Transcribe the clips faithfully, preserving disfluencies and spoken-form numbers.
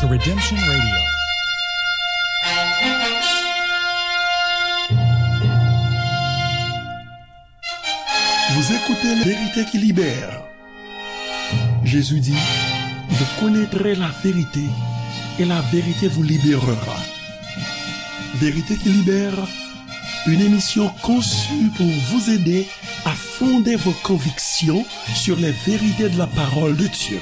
Redemption Radio. Vous écoutez la vérité qui libère. Jésus dit, vous connaîtrez la vérité et la vérité vous libérera. Vérité qui libère, une émission conçue pour vous aider à fonder vos convictions sur les vérités de la parole de Dieu.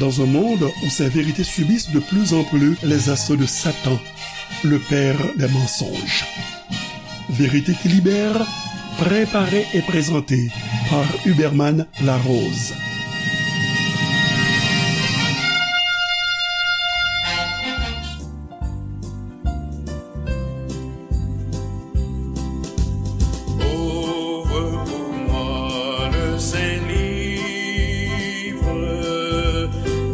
Dans un monde où ces vérités subissent de plus en plus les assauts de Satan, le père des mensonges. Vérité qui libère, préparée et présentée par Huberman Larose. Ouvre pour moi le Saint-Livre,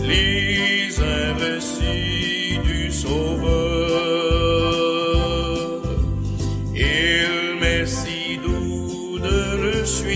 lis un récit du Sauveur. Il m'est si doux de le suivre.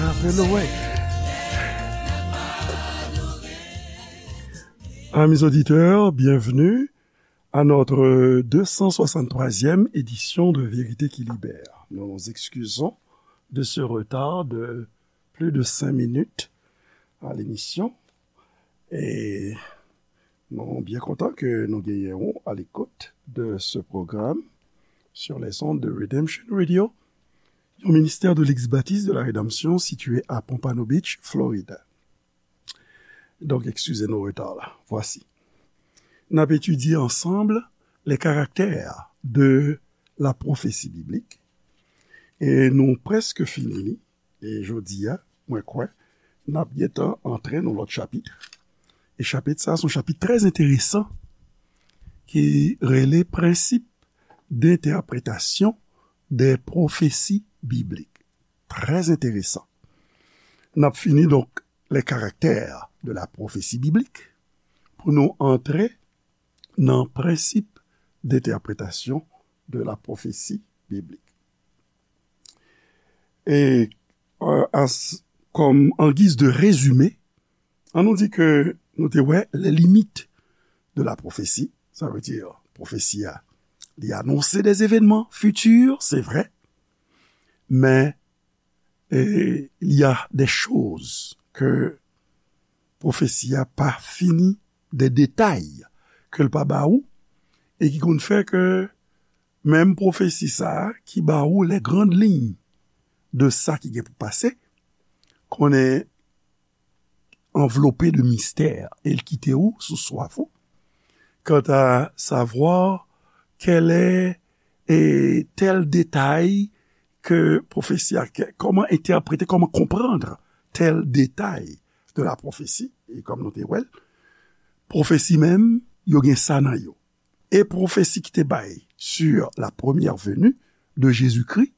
Amen, ouais. Amis auditeurs, bienvenue à notre deux cent soixante-troisième édition de Vérité qui Libère. Nous nous excusons de ce retard de plus de cinq minutes à l'émission. Et nou byen kontan ke nou genyen w à l'écoute de ce programme sur les ondes de Redemption Radio, yon ministè de l'ex-baptiste de la rédemption situé à Pompano Beach, Florida. Donc, excusez nos retards là. Voici. N ap etidye ansanm les caractères de la prophétie biblique. E nou prèske fini li. E jodi a, mwen kwè, n ap gentan antre nan lòt chapit. E chapit sa, se yon chapit trè enteresan ki rele Principes d'interprétation des prophéties bibliques. Trè enteresan. N ap fini, donk, les caractères de la prophétie biblique pou nou antre nan Principes d'interprétation de la prophétie biblique. E, euh, as, comme en guise de résumé, an nou di ke nou te wè les limites de la prophétie, ça veut dire, pwofesi a, li anonse des événements futurs, c'est vrai, mais et il y a des choses que pwofesi a pa fini, des détails ke l pa ba ou, e ki konn fè ke menm pwofesi sa a ki ba ou les grandes lignes de sa ki gen pou pase, konnen anvlope de mistè, e l kite ou sou swaf ou. Quant à savoir quel est et tel détail ke pwofesi a, ke, kòman entèprete, kòman konprann tel détail de la prophétie, e kòm nou te wè l, pwofesi menm, yo gen sa nan yo. E pwofesi ki te bay sur la première venue de Jésus-Christ,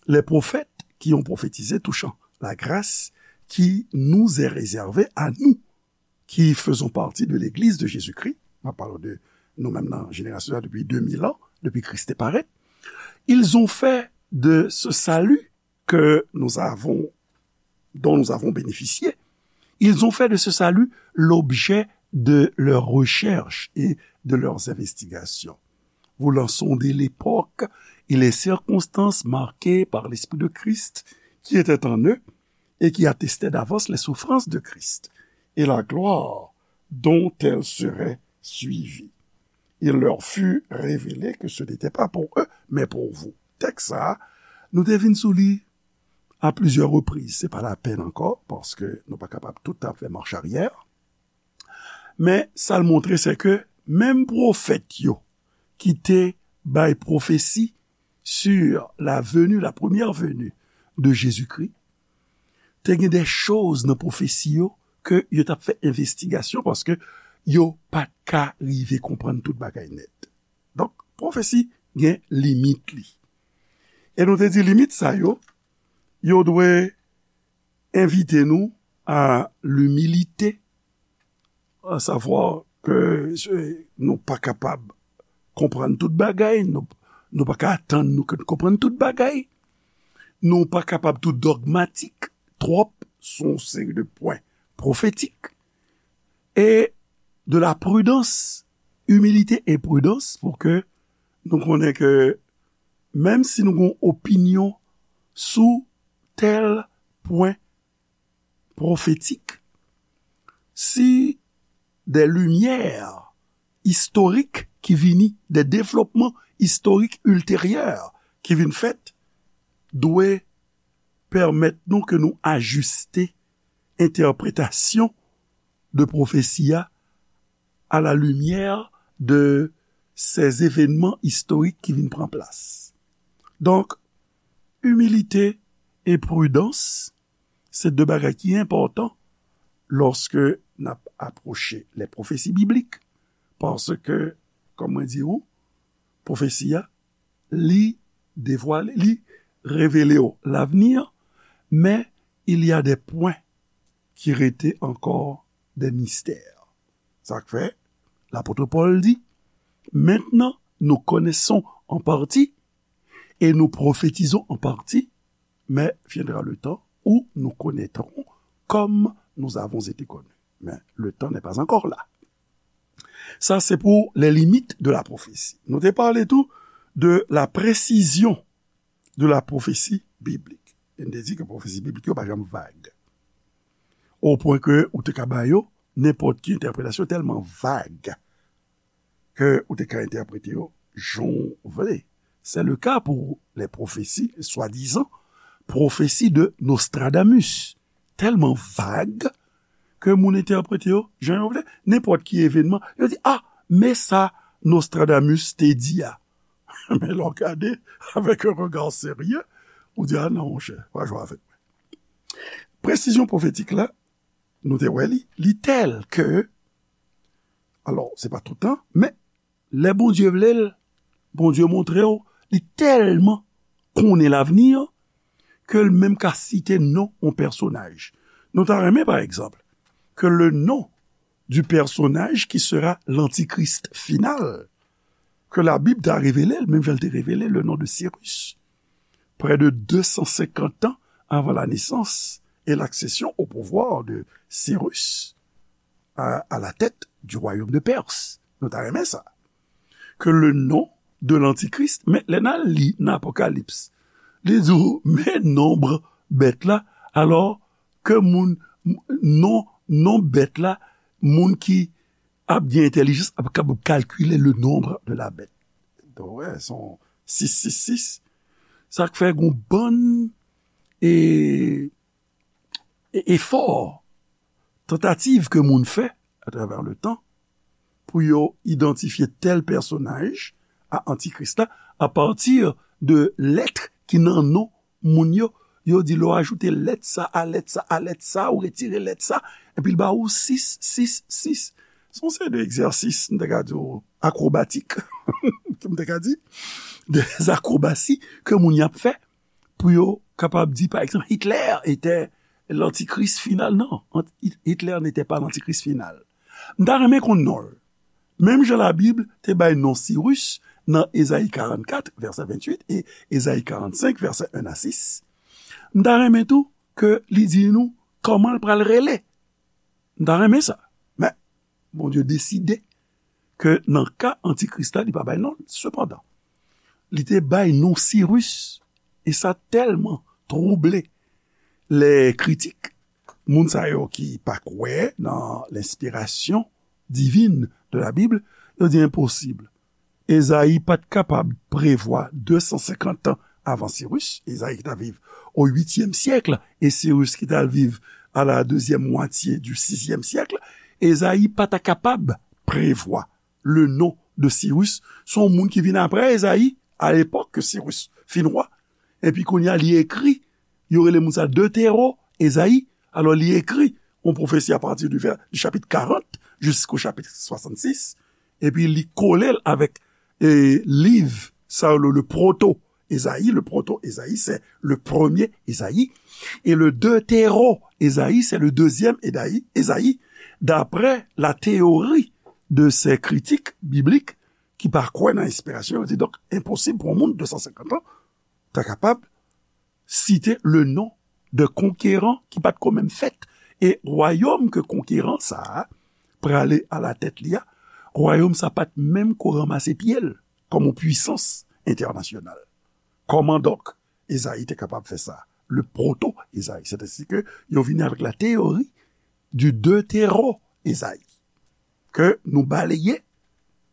les prophètes qui ont prophétisé touchant la grâce qui nous est réservée à nous, qui faisons partie de l'Église de Jésus-Christ, mwen pale de nou menm nan jenerasyon sa depi de mil an, depi Kris te parèt, ils ont fait de ce salut que nous avons, dont nous avons bénéficié, ils ont fait de ce salut l'objet de leurs recherches et de leurs investigations, voulant sonder l'époque et les circonstances marquées par l'Esprit de Christ qui était en eux et qui attestait d'avance les souffrances de Christ et la gloire dont elles seraient suivies. Il leur fut révélé que ce n'était pas pour eux, mais pour vous. Tèks sa a, nou te vin sou li à plusieurs reprises. Se pa lapèn ankò, paske nou pa kapab tout tan fè mach aryè. Men sa l montre, se ke menm pwofèt yo ki te bay pwofesi sur la venue, la première venue de Jésus-Christ, te gen de choz nan pwofesi yo ke yo t ap fè envestigasyon, paske yo pa t ka rive konprann tout bagay nèt. Donk, pwofesi gen limit li. E nou te di limit sa yo, yo dwe envite nou à l'humilité, à savoir que, euh, nou pa kapab konprann tout bagay, nou, nou pa ka atann nou ke nou konprann tout bagay, nou pa kapab tou dogmatik twòp sou yon seri de pwen pwofetik, e de la prudence, humilité et prudence, pou ke nou konnen ke menm si nou gen yon opinyon sou tèl pwen pwofetik, si de limyè istorik ki vini, de devlopman istorik ilteryè ki vin fèt, dwe pèmèt nou ke nou ajiste entèpretasyon de pwofesi a à la lumière de ces événements historiques ki vin pran plas. Donk, imilite e pridans, se de bagay ki enpòtan lòske n ap apwoche les prophéties bibliques, paske, kòm mwen di ou, pwofesi a, li devwale, li revele w lavni, men il y a des points ki rete ankò de mistè. Sa k fè, lapot Pòl di, maintenant nous connaissons en partie et nous prophétisons en partie, mais viendra le temps où nous connaîtrons comme nous avons été connus. Mais le temps n'est pas encore là. Ça, c'est pour les limites de la prophétie. Nou te pale tou de la précision de la prophétie biblique. E n te di ke pwofesi biblik yo pa janm vag. O pwen ke ou te ka ba yo nenpòt ki entèpretasyon tèlman vag ke ou te ka entèprete yo jan w vle. C'est le cas pour les prophéties, soi-disant, prophétie de Nostradamus. Tèlman vag ke moun entèprete yo jan yo vle. Nenpòt ki evenman, yo di, ah, men sa Nostradamus te di a. Men lè w gade avec un regard sérieux, ou di, ah non, monchè, pa jwe avèk mwen. Presizyon pwofetik la, nou te wè li, li tèl ke, alò, se pa tout tan, men lè Bondye vle l, Bondye montre w, li tèlman konnen lavni an, ke l menm ka site non yon pèsonaj. Nou ta renmen, pa egzanp, ke le nom du personnage qui sera l'antichrist final, ke Labib ta revele l, menm jan l te revele le nom de Cyrus. Près de deux cent cinquante ans avant la naissance et l'accession au pouvoir de Cyrus à, à la tête du royaume de Perse. Nou ta renmen sa. Ke le nom de l'antichrist, men lè n al li nan Apokalips, li di w, men nonb bèt la, alò ke moun, non, non bèt la, moun ki ap gen entèlijans ap kapab kalkile le nombre de la bête. Donk, wè, se yon sis sis sis. Sa k fè gon bann e, e, efò, tantativ ke moun fè atravè le tan pou yo idantifye tèl pèsonaj a antikris la apati de lèt ki nan non moun yo. Yo di lè w ajoute lèt sa a lèt sa a lèt sa, ou retire lèt sa, epi l ba ou sis sis sis. Se yon seri de egzèsis, m te ka di w, akwobatik, m te ka di, de akwobasi ke moun y ap fè pou yo kapab di, pa egzanp, Hitler était l'antichrist final. Non, Hitler n'était pas l'antichrist final. M ta renmen konn non l. Menm jan Labib te bay non Siris nan Ezayi karannkat, vèsè venntuit, e Ezayi karannsenk, vèsè en a sis, m ta renmen tou ke li di nou kòman l pral rele. M ta renmen sa. Men, Bondye deside ke nan ka antikris la, li pa bay non l. Sepandan, li te bay non Siris, e sa tèlman twouble lè kritik, moun sa yo ki pa kwè nan lenspirasyon divin de la Bib, yo di enposib. Ezayi pa t kapab prevwa de san senkant tan avan Siris, Ezayi ki t ap viv o uityèm syèk, e Siris ki t al viv à la deuxième moitié du sixième siècle, Ezayi pa ta kapab prevwa le nom de Siris. Se yon moun ki vin apre Ezayi, a lepòk ke Siris fin wa. Epi kounye a, li ekri, yo rele moun sa Deutéro Ezayi. Alò, li ekri yon pwofesi apati du, vè- du chapitre quarante jusqu'au chapitre soixante-six. Epi li kole l avèk e, liv sa yo, le, le proto Ezayi, le proto Ezayi, c'est le premier Ezayi. Et le deutéro Ezayi, c'est le deuxième Ezayi, Ezayi, d'après la théorie de ces critiques bibliques ki pa kwè nan enspirasyon, yo di, donk, enposib pou yon moun de san senkant an ta kapab site le non de konkeran ki pa t ko menm fèt. E wayòm ke konkeran sa a prale alatèt li a, wayòm sa pa t menm ko ranmase pye l kòm yon pwisans entènasyonal. Kòman donk Ezayi te kapab fè sa? Le proto Ezayi, sètadi ke yo vini avèk la théorie du deutéro Ezayi, ke nou baleye,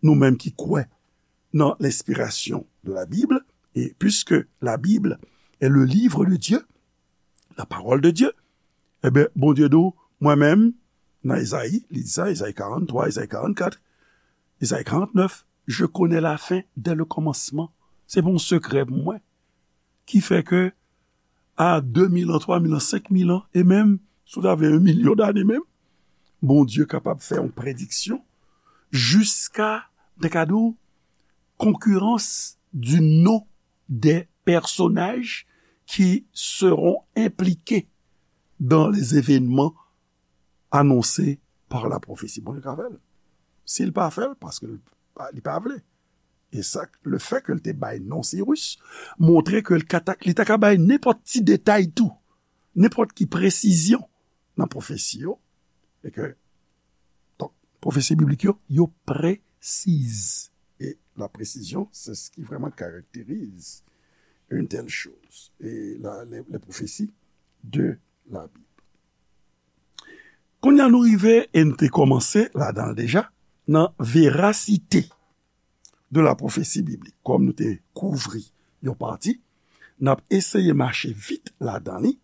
nou menm ki kwè nan l'inspiration de la Bible, et puisque la Bible est le livre de Dieu, la parole de Dieu, ebyen, Bondye di w, mwen menm, nan Ezayi, li di sa, Ezayi karanntwa, Ezayi karannkat, Ezayi karantnèf, je connais la fin dès le commencement. Se pa yon sekrè pou mwen. Ki fè ke a de mil an, twa mil an, senk mil an, e menm, si w ta vle, yon milyon dane menm, Bondye kapab fè yon prediksyon jiska, m ta ka di w, concurrence du nom des personnages qui seront impliqués dans les événements annoncés par la prophétie. Bondye ka fè l. Si l pa fè l, paske l pa, li pa vle. E sa, le fè ke l te bay non Siris, montre ke l ka ta, li ta ka bay nenpòt ti detay tou. nenpòt ki presizyon nan pwofesi yo, e ke, donk, pwofesi biblik yo, yo presiz. E la presizyon, c'est ce qui vraiment caractérise une telle chose. Et la, les, les prophéties de la Bible. Kounye a nou rive, e n te kòmanse ladan l deja, nan verasite de la pwofesi biblik. Kòm nou te kouvri yon pati, n ap eseye mache vit ladan li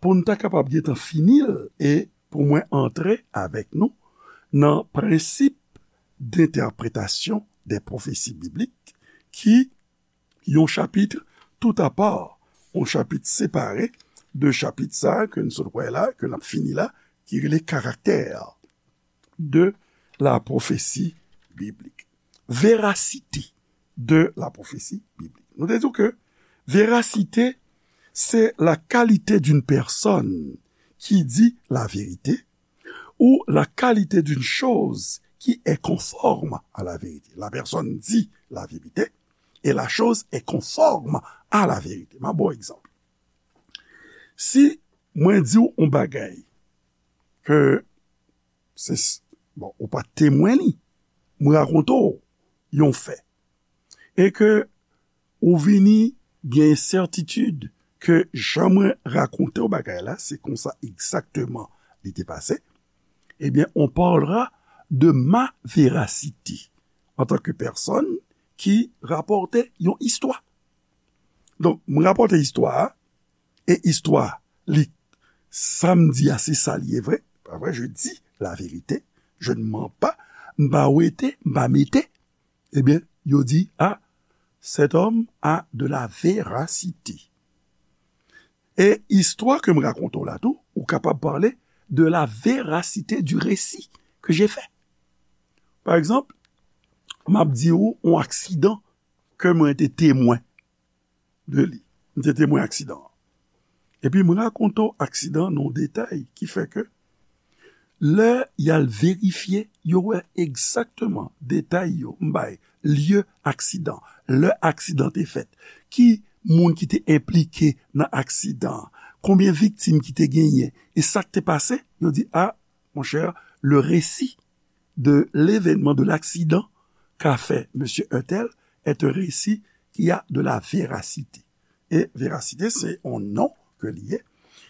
pou n ta kapab gentan fini l e pou mwen antre avèk nou nan prensip dentèpretasyon de pwofesi biblik ki yon chapit toutapa, yon chapit separe de chapit sa ke n sot wè la, ke n ap fini la, ki rele karaktè de la pwofesi biblik. Verasite de la pwofesi biblik. Nou te di ke verasite, c'est la qualité d'une personne qui dit la vérité ou la qualité d'une chose qui est conforme à la vérité. La personne dit la vérité et la chose est conforme à la vérité. M a bon egzanp. Si mwen di w yon bagay ke se, bon, ou pa t temwen li, mwen rakonte w yon fè, e ke ou vini gen sètitid ke jan mwen rakonte w bagay la, se konsa egzakteman li te pase, ebyen, on parlera de ma véracité en tant que personne qui rapporte yon istwa. Donk, mwen rapòte istwa a, e istwa li, sa m di a, se sa li ye vre, pa vre, je dis la vérité, je ne mens pas, m pa wete, m pa mete, ebyen, yo di, ah, cet homme a de la véracité. E istwa ke m rakonte w la tou, ou kapab pale de la véracité du récit que j'ai fait. Pa egzanp, m ap di w yon aksidan ke mwen te temwen de li. M te temwen aksidan an. Epi m rakonte w aksidan nan yon detay ki fè ke lè y al verifye, yo wè egzakteman detay yo m bay, lye aksidan, lè aksidan te fèt, ki moun ki te enplike nan aksidan an, konbyen viktim ki te genyen, e sa k te pase, yo di, a, monchè, le récit de l'événement, de l'accident qu'a fait monsieur untel est un récit qui a de la véracité. E verasite, se yon non ke li ye.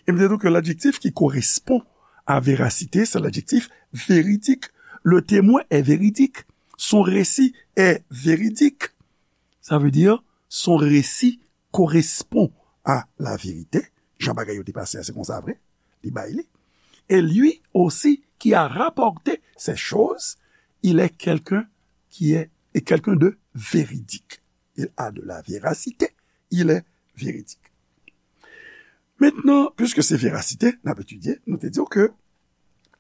E m te di w ke ladjektif ki korespon a verasite, se ladjektif véridique. Le témoin est véridique. Son récit est véridique. Ça veut dire, son récit correspond à la vérité. Jan bagay yo te pase a, se konsa vre. Li bay li. Et lui aussi qui a rapporté ces choses, il est quelqu'un qui est, est quelqu'un de véridique. Il a de la véracité, il est véridique. Maintenant, puisque c'est véracité, n ap etidye, nou te di w ke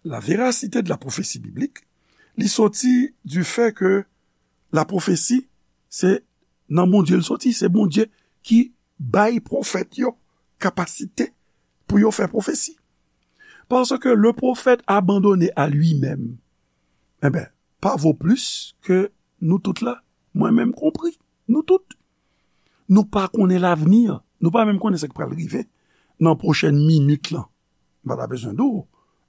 la véracité de la prophétie biblique, li soti du fait que la prophétie, se nan Bondye l soti, se Bondye ki bay pwofèt yo kapasite pou yo fè pwofesi. Parce que le prophète abandonné à lui-même, eh ben, pa vo plis ke nou tout la, mwen menm konpri, nou tout. Nou pa konnen lavni, nou pa menm konnen sa k pral rive nan pwochèn minit lan. M pa ta bezwen di w,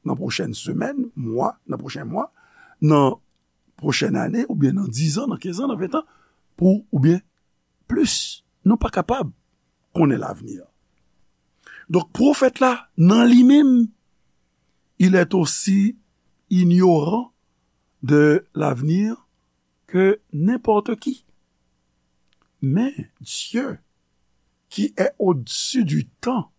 nan pwochèn semèn, mwa, nan pwochen mwa, nan pwochèn ane, oubyen nan diz an, nan kenz an, nan ven an, pou, oubyen plis. Nou pa kapab konnen lavni. Donk, pwofèt la, nan li menm, il est aussi ignorant de l'avenir que n'importe qui. Mais Dieu, qui est au-dessus du temps,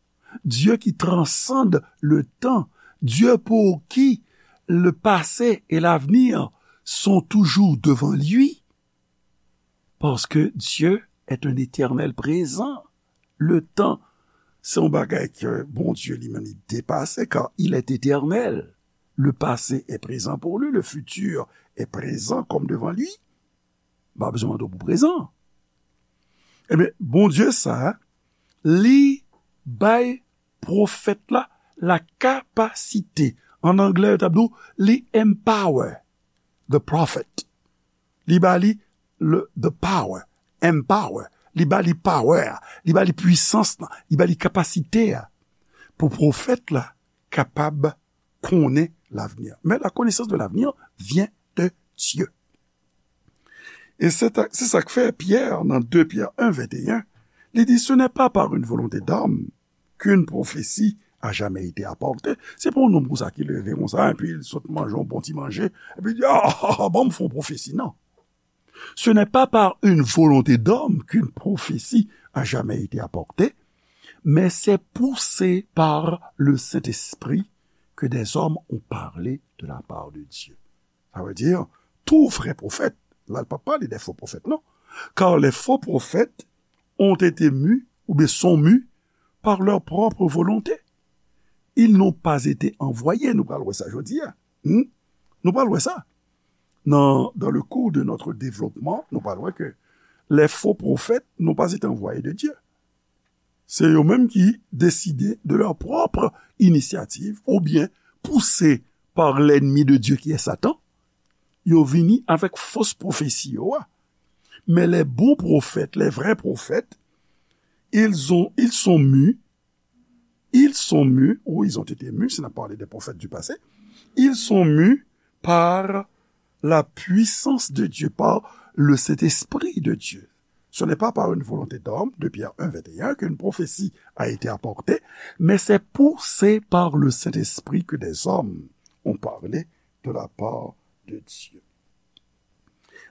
Dieu qui transcende le temps, Dieu pour qui le passé et l'avenir sont toujours devant lui, parce que Dieu est un éternel présent. Le temps, se yon bagay ke Bondye li menm li depase, car il est éternel. Le passé est présent pour lui, le futur est présent comme devant lui. M pa bezwen mande w pou prezan. Ebyen, Bondye sa, li bay pwofèt la la kapasite. An anglè, yo t ap di w, li empower the prophet. Li ba li le, the power, empower. Li ba li power a, li ba li pwisans lan, li ba li kapasite a. pou pwofèt la kapab konnen lavni. Mais la connaissance de l'avenir vient de Dieu. E se ta- se sa k fè Pyè, nan de Pyè en, venteyen, li di, Ce n'est pas par une volonté d'homme qu'une prophétie a jamais été apportée. Se pa yon nonm konsa ki leve konsa, epi l sot manje yon bon ti manje, epi l di, Ah, ah, ah, ban m fè yon pwofesi. Non. Ce n'est pas par une volonté d'homme qu'une prophétie a jamais été apportée, mais c'est poussé par le Saint-Esprit que des hommes ont parlé de la part de Dieu. Ça veut dire, tout vrai prophète, là, il ne parle pas des faux prophètes, non. Car les faux prophètes ont été mus, ou bien sont mus, par leur propre volonté. Ils n'ont pas été envoyés, nou pral wè sa jodi a. Hmm? Nou pral wè sa. Dans, dans le cours de notre développement, nou pral wè ke les faux prophètes n'ont pas été envoyés de Dieu. Se yo menm ki deside de leur propre initiative, oubyen pouse par l'ennemi de Dieu qui est Satan, yo vini avèk fos pwofesi yo a. Mais les bons prophètes, les vrais prophètes, ils ont, ils sont mus, ils sont mus, ou ils ont été mus, si n ap pale de pwofèt du passé, ils sont mus par la puissance de Dieu, par le Saint-Esprit de Dieu. Ce n'est pas par une volonté d'homme, de Pierre un, vingt et un, qu'une prophétie a été apportée, mais c'est poussé par le Saint-Esprit que des hommes ont parlé de la part de Dieu.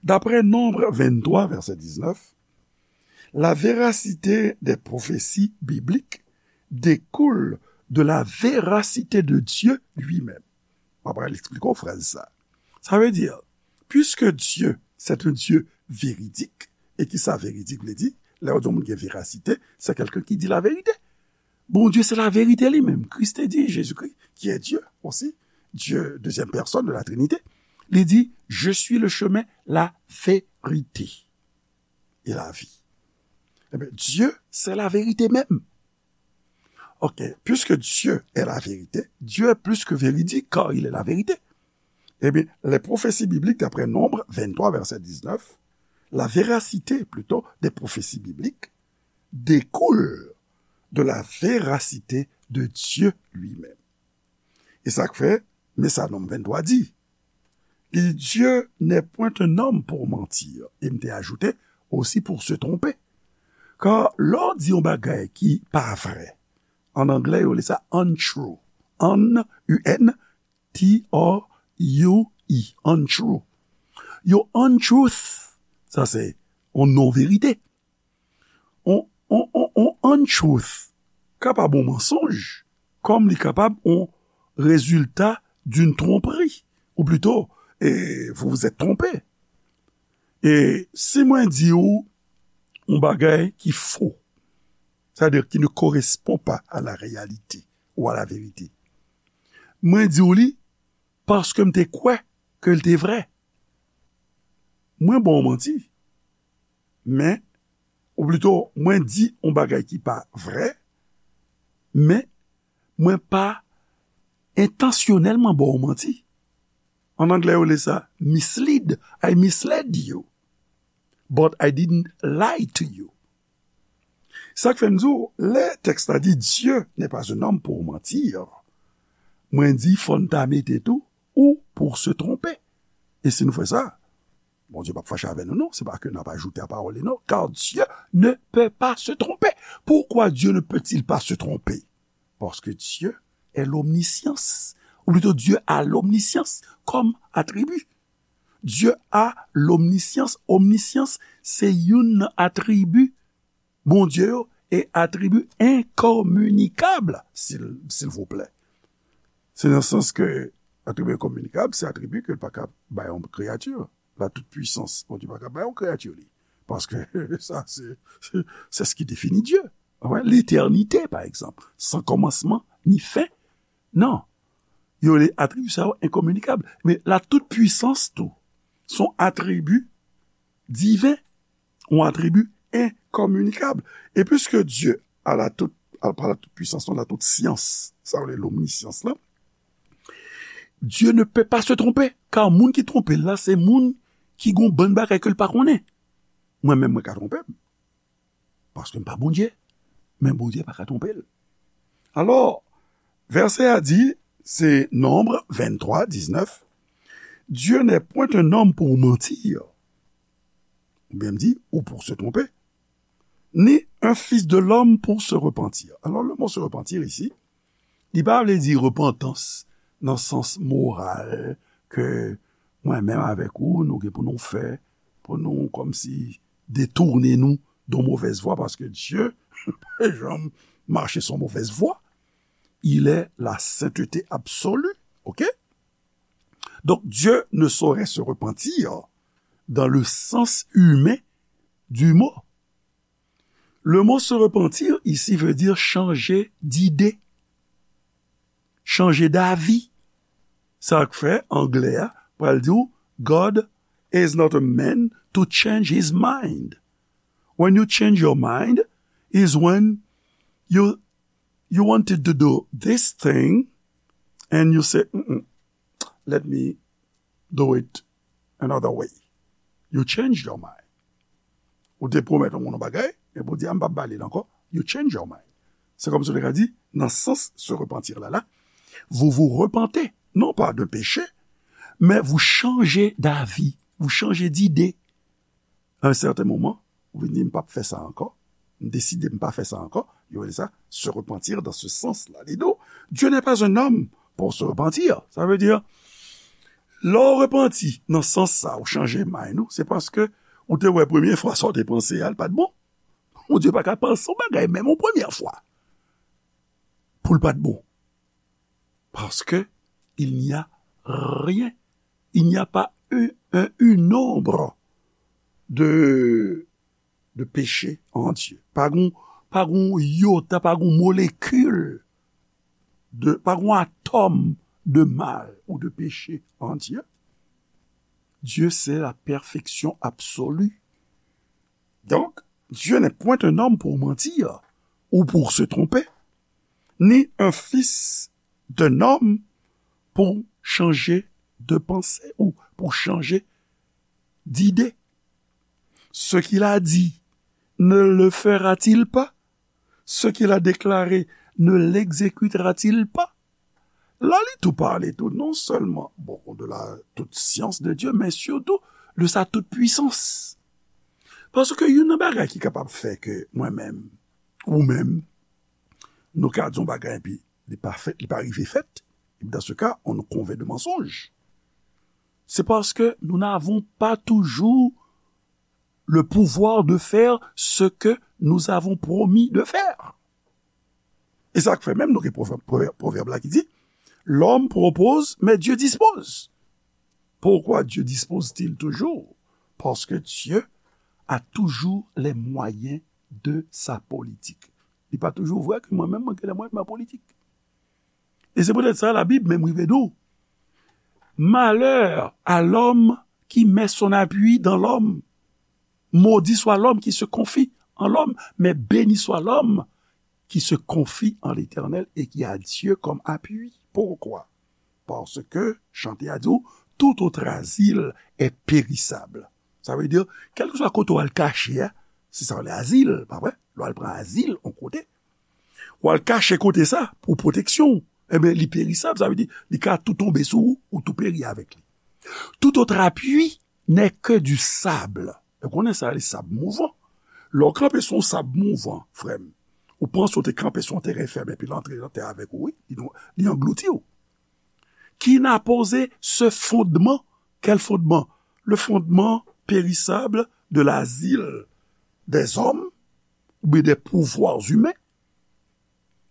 D'après Nombre vingt-trois, verset dix-neuf, la véracité des prophéties bibliques découle de la véracité de Dieu lui-même. Mwen pral eksplike w frèz sa. Sa vle di, puisque Dieu, c'est un Dieu véridique, e ki sa véridique vle di? Lè w di yon moun gen verasite, c'est quelqu'un qui dit la vérité. Bondye se laverite li menm. Kris te di, Jésus-Christ, qui est Dieu aussi, Dieu, deuxième personne de la Trinité, li di, Je suis le chemin, la vérité et la vie. Ebyen, Dieu, c'est la vérité même. Ok, puisque Dieu est la vérité, Dieu est plus que véridique car il est la vérité. Ebyen, les prophéties bibliques, d'après Nombre vingt-trois, verset dix-neuf, la véracité plutôt des prophéties bibliques découle de la véracité de Dieu lui-même. E sa k fè, men sa Nonm venntwa di, li di, Dieu n'est point un homme pour mentir. E m te ajoute, aussi pour se tromper. Kan lè w di yon bagay ki pa vrè, an anglè yo rele sa untrue. Un, U N, T R U E, untrue. Yon untruth, sa se yon non verite. On, on, on, on untruth kapab yon mansonj, kòm li kapab yon résultat d'une tromperie. Ou plutôt, eh, vous vous êtes trompé. E si mwen di w yon bagay ki fo, c'est-à-dire qui ne correspond pas à la réalité ou à la vérité, mwen di w li paske m te kwè ke l te vrè. Mwen ba w manti. Men, ou plito, mwen di yon bagay ki pa vrè, men mwen pa entansyonèlman ba w manti. An anglè, yo rele sa mislead. I misled you, but I didn't lie to you. Sa k fè m di w, lè tèks la di, Dieu n'est pas un homme pour mentir, mwen di, fò n ta mete tou, ou pour se tromper. E si nou fè sa, Bondye p ap fache avè nou, non. Se pa ke n ap ajoute a pawòl li, non. Car Dieu ne peut pas se tromper. Pourquoi Dieu ne peut-il pas se tromper? Parce que Dieu est l'omniscience. Ou plito, Dieu a l'omniscience comme attribut. Dieu a l'omniscience. Omniscience, se youn nan atribi Bondye yo, e atribi enkominikab, sil, silvouplè. Se nan sans ke atribi enkominikab, se atribi ke l pa ka bay yon kreyati. La toute puissance, Bondye pa ka bay yon kreyati li. Paske sa, se, se, c'est ce qui définit Dieu. Wè, l'éternité, par exemple, sans commencement ni fin. Non. Yo rele atribi sa yo enkominikab. Men la toute puissance tou, se yon atribi diven, yon atribi enkominikab. E puiske Dieu a la toute, a, pa la toute puissance, non, la toute science, sa yo rele l'omniscience la, Dieu ne peut pas se tromper, car moun ki twonpe l la, se moun ki gon bann bagay ke l pa konnen. Mwen menm, mwen ka twonpe m. Paske m pa Bondye. Men Bondye pa ka twonpe l. Alò, Vèsè a di, se Nonb venntwa diznèf, Dieu n'est point un homme pour mentir, oubyen m di, ou pour se tromper, ni un fils de l'homme pour se repentir. Alors, le mot se repentir ici, li pa vle di repantans nan sans moral ke mwen menm avèk ou, nou gen pou nou fè, pou nou kòmsi detounen nou de mauvaise voie, paske Dye pa janm mache sou mauvaise voie. Il est la sainteté absolue. OK? Donc, Dieu ne saurait se repentir dans le sens humain du mot. Le mot se repentir ici veut dire changer d'idée, changer d'avis. Sa k fè anglè a pral di w, God is not a man to change his mind. When you change your mind is when you you wanted to do this thing and you say, "Mm-mm, let me do it another way." You change your mind. Ou te pwomèt yon moun yon bagay, epi ou di, "A, m p ap ba li l ankò." You change your mind. Se kòmsi ou te ka di, nan sans se repantir la, la, vous vous repentez, non pas d'un péché, mais vous changez d'avis, vous changez d'idée. À un certain moment, ou vin di, "M p ap fè sa ankò, m deside m pa fè sa ankò." Yo rele sa se repentir dans ce sens-là. Li di w, Dieu n'est pas un homme pour se repentir. Sa vle di, lè w repanti nan sans sa, ou chanje mind ou, se paske ou te wè premye fwa sa w te panse a, l pa t bon. Bondye pa ka panse yon bagay menm yon premye fwa pou l pa t bon. Parce que il n'y a rien, il n'y a pas un, un, une ombre de, de péché en Dieu. Pa gon, pa gon yota, pa gon molekil de, pa gon atòm de mal ou de péché en Dieu. Dieu, c'est la perfection absolue. Donc, Dieu n'est point un homme pour mentir ou pour se tromper, ni un fils d'un homme pour changer de pensée ou pour changer d'idée. Ce qu'il a dit, ne le fera-t-il pas? Ce qu'il a déclaré, ne l'exécutera-t-il pas? La, li tou pale tou, non sèlman, bon, de la toute science de Dieu, men sitou de sa toute puissance. Paske youn nan bagay ki kapab fè ke mwen menm, ou menm, nou ka di yon bagay epi li pa fèt, li pa rive fèt, et dans ce cas, on nous convainc de mensonge. C'est parce que nous n'avons pas toujours le pouvoir de faire ce que nous avons promis de faire. E sa k fè menm nou gen pwovèb, pwovèb, pwovèb la ki di, "L'homme propose, mais Dieu dispose." Pourquoi Dieu dispose-t-il toujours? Parce que Dieu a toujours les moyens de sa politique. Li pa toujou vre ke mwen menm mwen gen les moyens de ma politique. E se poutèt sa Labib menm rive di w, "Malheur à l'homme qui met son appui dans l'homme. Maudit soit l'homme qui se confie en l'homme, mais béni soit l'homme qui se confie en l'Éternel et qui a Dieu comme appui." Pourquoi? Parce que, chante a di w, "Tout autre asile est périssable." Sa vle di, kèlkeswa kote w al kache a, se sa w rele azil, pa vre? Lè w al pran azil yon kote, w al kache kote sa pou pwoteksyon w, ebyen, li perisab, sa vle di, li ka tou tonbe sou ou, ou tou peri avèk li. "Tout autre appui n'est que du sable." Ou konnen sa, li sab mouvan. Lè w kanpe sou yon sab mouvan, frè m, ou panse w te kanpe sou yon teren fèm epi l antre nan tè avèk ou, wi, li, li anglouti w. Qui n'a posé ce fondement? Quel fondement? Le fondement périssable de l'asile des hommes ou bien des pouvoirs humains.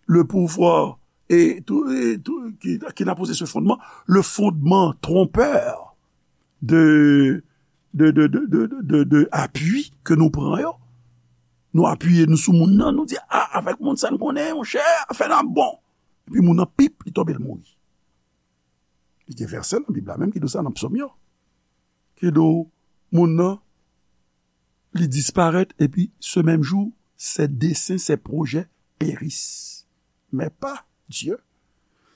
Le pouvoir et tout, et tout, qui, qui n'a posé ce fondement, le fondement trompeur de, de, de, de, de, de, de appui ke nou pran yo. Nou apiye nou sou moun nan, nou di, "A, avèk moun sa n konnen, monchè, afè n ap bon." Epi moun nan, pip, li tonbe, l mouri. Li gen vèsè nan Bib la menm ki di w sa nan Psòm yo. Ki di w, moun nan, li disparèt, epi ce même jour, ses desseins, ses projets périssent. Mais pas Dieu.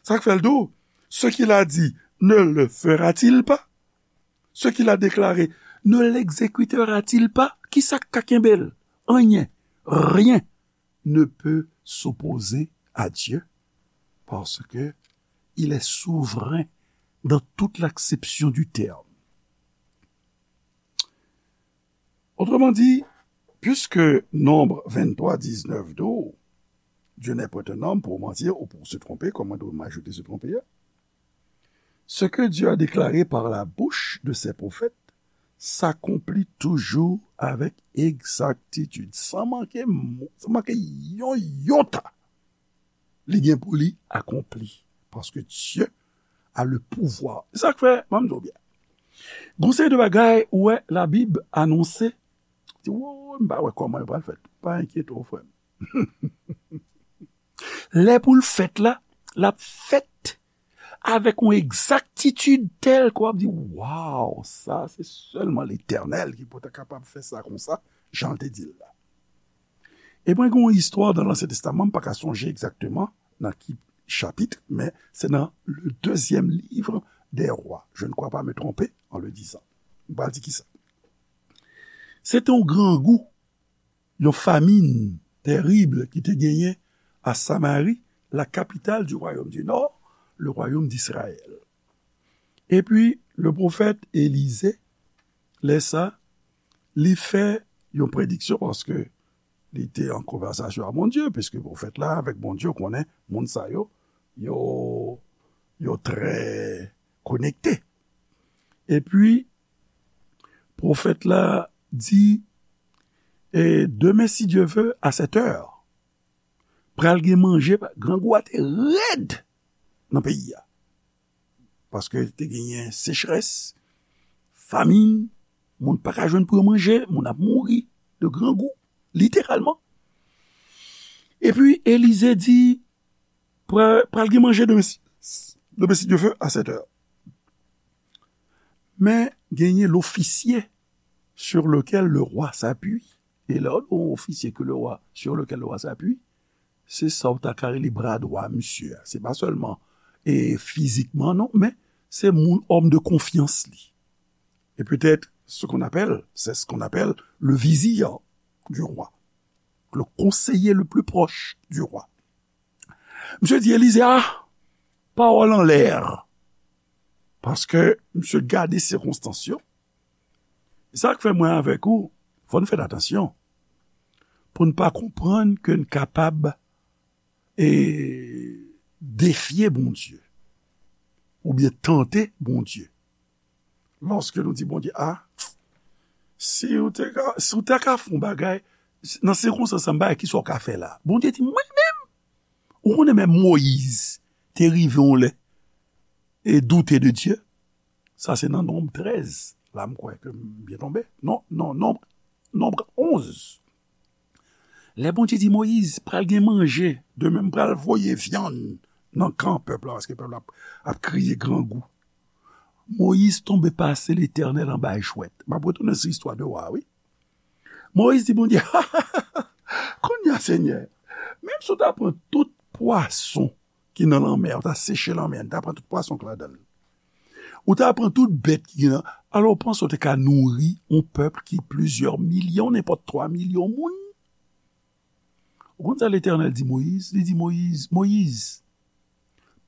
Sa k fè l di w, "Ce qu'il a dit, ne le fera-t-il pas? Ce qu'il a déclaré, ne l'exécutera-t-il pas?" Kisa k ka kenbe l? Anyen. Rien ne peut s'opposer à Dieu. parce que il est souverain dans toute l'acception du terme. Autrement dit, puisque Nombre vingt-trois dix-neuf dit, Dieu n'est point un homme pour mentir ou pour se tromper, comme on doit ajouter se tromper, ce que Dieu a déclaré par la bouche de ses prophètes s'accomplit toujours avec exactitude, sans manquer, mo- sans manquer yon iota. Li gen pou li akonpli. Paske Dieu a le pouvoir. Sa k fè, ban m di w byen. Gon seri de bagay, ou wè, Labib anonse. Di, wo, m pa wè kòman yo pral fèt. Pa enkyete w, frè m. Lè pou l fèt la, l ap fèt avèk yon egzaktitid tèl ke w ap di, waw, sa, se sèlman Letènèl ki pou ta kapab fè sa konsa, jan l te di l la. E mwen gen yon istwa nan Ansyen Testaman, m pa ka sonje egzakteman nan ki chapit, men se nan le deuxième livre des Rois. Je ne crois pas me tromper en le disant. M pral di kisa. Se te yon grangou, yon famin terib ki te genyen a Samari, la capitale du royaume du nord, le royaume d'Israël. Epi, le pwofèt Elize, lè sa, li fè yon prediksyon paske li te an konvèsasyon a Bondye, piske pwofèt la avèk Bondye, ou konnen, moun sa yo, yo, yo trè konekte. Epi, pwofèt la di, e demen, si Dye ve, a sèt è, pral gen manje, grangou a te rèd nan peyi a. Paske te genyen sechrès, famin, moun pa ka jwenn pou yo manje, moun ap mouri de grangou, literalman. Epi Elize di, pral, pral gen manje demen, si- demen, si Dye ve, a sèt è. Men genyen l'officier sur lequel le roi s'appuie. E lè w di yon ofisye ke le roi, sur lequel le roi s'appuie, se sa w ta ka rele bra dwa misye a. Se pa sèlman e fizikman, non, men se moun, òm de konfyans li. Et peut-être ce qu'on appelle, c'est ce qu'on appelle le vizir du roi, le conseiller le plus proche du roi. Misye di Elize, a, pawòl anlè. Paske misye gade sikonstans yo. Sa k fè mwen avèk ou, fò n fè atansyon pou n pa konprann ke n kapab e defye Bondye oubyen tante Bondye. Lòske nou di Bondye, a, si w te ka, si w te ka fè yon bagay, nan sikonstans sa, m bagay, kisa w ka fè la? Bondye di, mwen menm? Ou konnen menm Moyiz te rive yon lè e doute de Dye. Sa se nan Nonb trèz. La, m kwè ke m byen tonbe. Non, non, Nonb, Nonb onz. Lè Bondye di Moyiz, pral gen manje, demen m pral voye vyann nan kan pèp la, paske pèp la ap, ap kriye grangou. Moyiz tonbe pase Letènèl anba jwèt. M ap retounen sou istwa de wa, wi. Moyiz di Bondye, kounye a, Senyè, menm si w ta pran tout pwason ki nan lanmè, ou ta seche lanmè, ou ta pran tout pwason ki ladan l, ou ta pran tout bèt ki gen nan, alò, ou panse w te ka nouri yon pèp ki plizyè milyon, nenpòt twa milyon moun? Ou konn sa Letènèl di Moyiz? Li di Moyiz, Moyiz,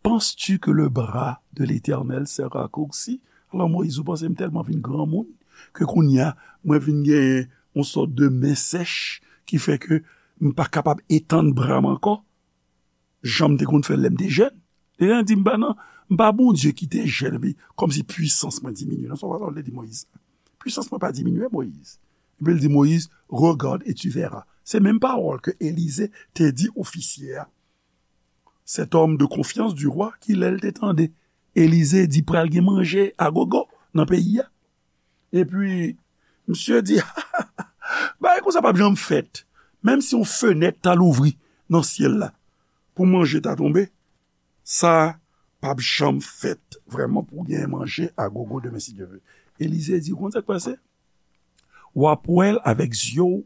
penses-tu que le bras de l'Éternel sera raccourci? Alò, Moyiz, ou panse m tèlman vin granmoun ke kounye a, mwen vin gen yon sòt de men sèch ki fè ke m pa kapab etann bra m ankò, jan m te konn fè l lè m te jèn? Letènèl di, m pa nan, m pa Bondye ki te jèn, epi kòmsi pwisans mwen diminye. Non, se pa sa l te di Moyiz. Pwisans mwen pa diminye, Moyiz. Epi l di Moyiz, regarde et tu verras. Se menm pawòl ke Elize te di ofisye a. Cet homme de confiance du roi ki lè l te tande Elize di pral gen manje agogo nan peyi a. Epi, misye di, bagay konsa p ap janm fèt. Menm si yon fenèt ta louvri nan syèl la pou manje ta tonbe, sa p ap janm fèt vrèman pou gen manje agogo demen, si Dye ve. Elize di, ou konn sa k pase? W ap wè l avèk zye w,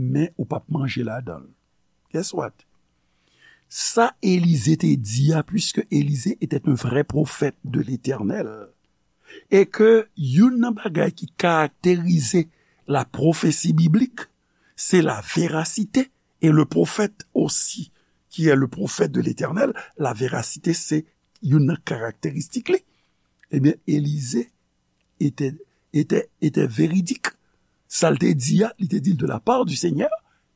men ou p ap manje ladan l. Guess what? Sa Elize te di a, puisque Élisée était un vrai prophète de l'Éternel, e ke youn nan bagay ki karakterize la pwofesi biblik, se la verasite, e le pwofèt osi, qui est le prophète de l'Éternel, la véracité, se youn nan karakteristik li. Ebyen, Elize était, était, était véridique. Sa l te di a, li te di l de la part du Seigneur.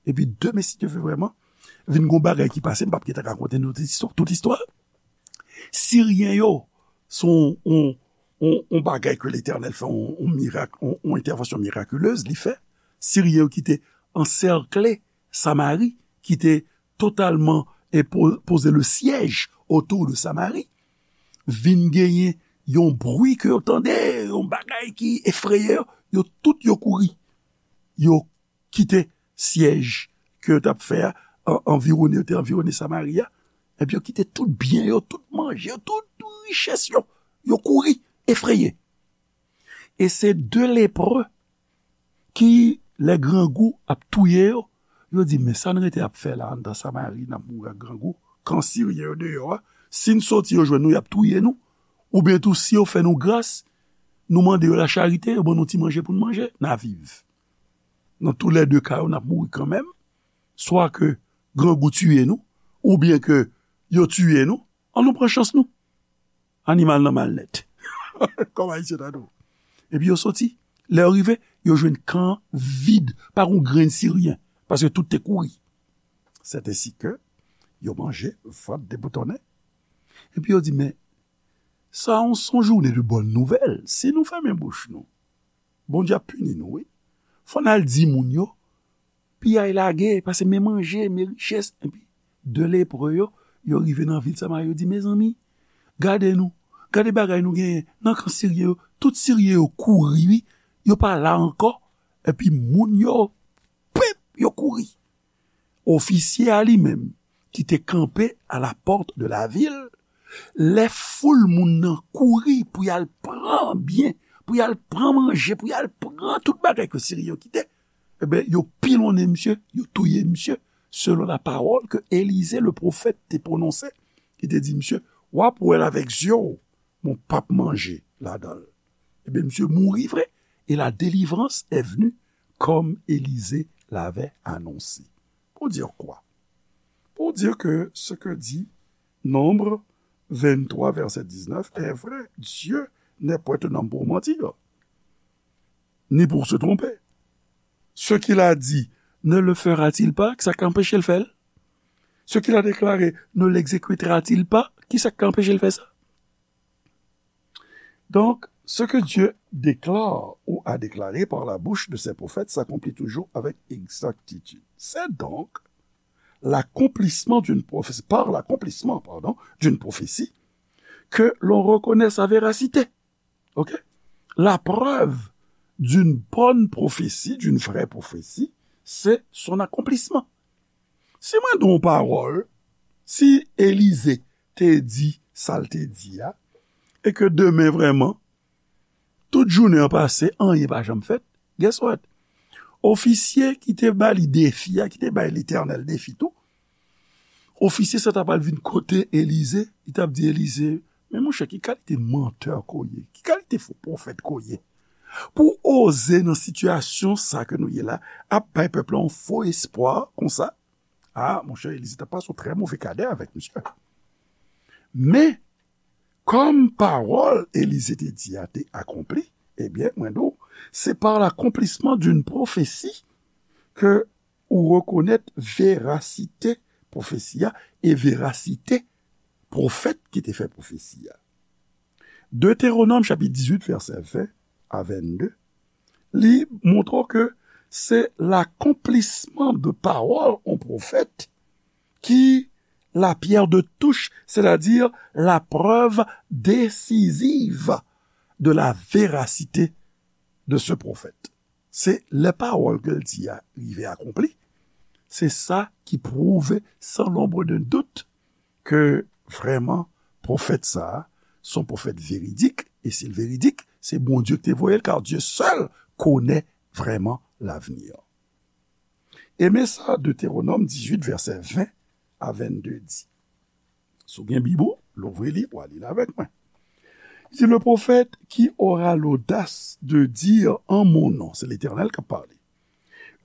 Epi demen, si Dye vle vrèman, vin gon bagay ki pase, m p ap gentan rakonte nou tout istwa, tout istwa. Siryen yo, se yon, yon, yon, yon bagay ke Letènèl fè, yon, yon mirak, yon, yon entèvansyon mirakilez li fè. Siryen yo ki te ansèkle Samari, ki te totalman e po-, poze le syèj otou de Samari, vin genyen yon bri ke yo tande, yon bagay ki efreye yo, yo tout yo kouri. Yo kite syèj ke yo t ap fè a, an-, anviwone, yo te anviwone Samari a, epi yo kite tout byen yo, tout manje yo, tout richès yo, yo kouri, efreye. E se de lepre ki, lè grangou ap touye yo, yo di, "Men sa n rete ap fè la anndan Samari, n ap mouri ak grangou, kan Siryen yo deyò a, si n soti yo jwenn nou, y ap touye nou, oubyen tou si yo fè nou gras, nou mande yo lacharite, yo ban nou ti manje pou n manje, n a viv." Nan toulède ka yo, n ap mouri kanmenm, swa ke grangou tiye nou, oubyen ke yo tiye nou, an nou pran chans nou. Animal nan mal nèt. Kòm Ayisyen ta di w. Epi yo soti. Lè yo rive, yo jwenn kan vid, pa gon grenn Siryen, paske tout te kouri. Sètensi ke yo manje, vant deboutonnen. Epi yo di, "Men, sa yon, se yon jounen de bòn nouvèl. Si nou fèmen bouch nou, Bondye ap pini nou, wi. Fò n al di moun yo, piyay lage, paske men manje, men richès." Epi de lepre yo, yo rive nan vil Samari, yo di, "Mezanmi, gade nou, gade bagay nou genyen nan kan Siryen yo, tout Siryen yo kouri, wi, yo pa la ankò." Epi moun yo, pip, yo kouri. Ofisye a li menm, ki te kanpe à la porte de la ville, lè foul moun nan kouri pou y al pran byen, pou y al pran manje, pou y al pran tout bagay ke Siryen yo kite, ebyen, yo pilonnen misye, yo touye misye, selon la parole que Élisée le prophète te pwononse, ki te di misye, "W ap wè l avèk zye w, men w p ap manje ladan l." Ebyen, misye mouri vre, et la délivrance est venue comme Élisée l'avait annoncé. Pour dire quoi? Pour dire que ce que dit Nombre vingt-trois, verset dix-neuf, est vrai. Dieu n'est point un homme pour mentir, ni pour se tromper. Ce qu'il a dit, ne le fera-t-il pas? Ki sa k anpeche l fè l? Ce qu'il a déclaré, ne l'exécutera-t-il pas? Ki sa k anpeche l fè sa? Donc, ce que Dieu déclare ou a déclaré par la bouche de ses prophètes s'accomplit toujours avec exactitude. C'est donc l'accomplissement d'une prophétie, par l'accomplissement, pardon, d'une prophétie, que l'on reconnaît sa véracité. OK? La preuve d'une bonne prophétie, d'une vraie prophétie, c'est son accomplissement. Si mwen di yon pawòl, si Elize te di sa l te di a, e ke demen vrèman, tout jounen an pase, anyen pa janm fèt, guess what? Ofisye ki te ba li defi a, ki te bay Letènèl defi tou, ofisye sa ta pral vin kote Elize, li t ap di Elize, "Men monchè, ki kalite mantè ke w ye? Ki kalite fo pwofèt ke w ye? Pou w oze nan sitiyasyon sa ke nou ye la, ap bay pèp la yon fo espwa konsa?" A, monchè, Elize t ap pase yon trè move kadè avèk misye. Men, kòm pawòl Elize te di a te akonpli, ebyen, mwen di w, c'est par l'accomplissement d'une prophétie que ou rekonèt verasite pwofesi a e verasite pwofèt ki te fè pwofesi a. Deutéronome chapitre dix-huit, verset vingt à vingt-deux, li montre w ke se l'accomplissement de parole yon pwofèt ki la pierre de touche, c'est-à-dire la preuve décisive de la véracité de ce prophète. Se lè pawòl ke l di a rive akonpli, se sa ki pwouve san lonbre de dout ke vrèman pwofèt sa a se yon pwofèt veridik, e si l veridik, se Bondye ki te voye l, car Dieu seul connaît vraiment l'avenir. E men sa Deutéronome dix-huit, verset vingt à vingt-deux di. Si w gen Bib ou, louvri li, w a li l avèk mwen. Il dit, le prophète qui aura l'audace de dire en mon nom, c'est l'Éternel qui parle,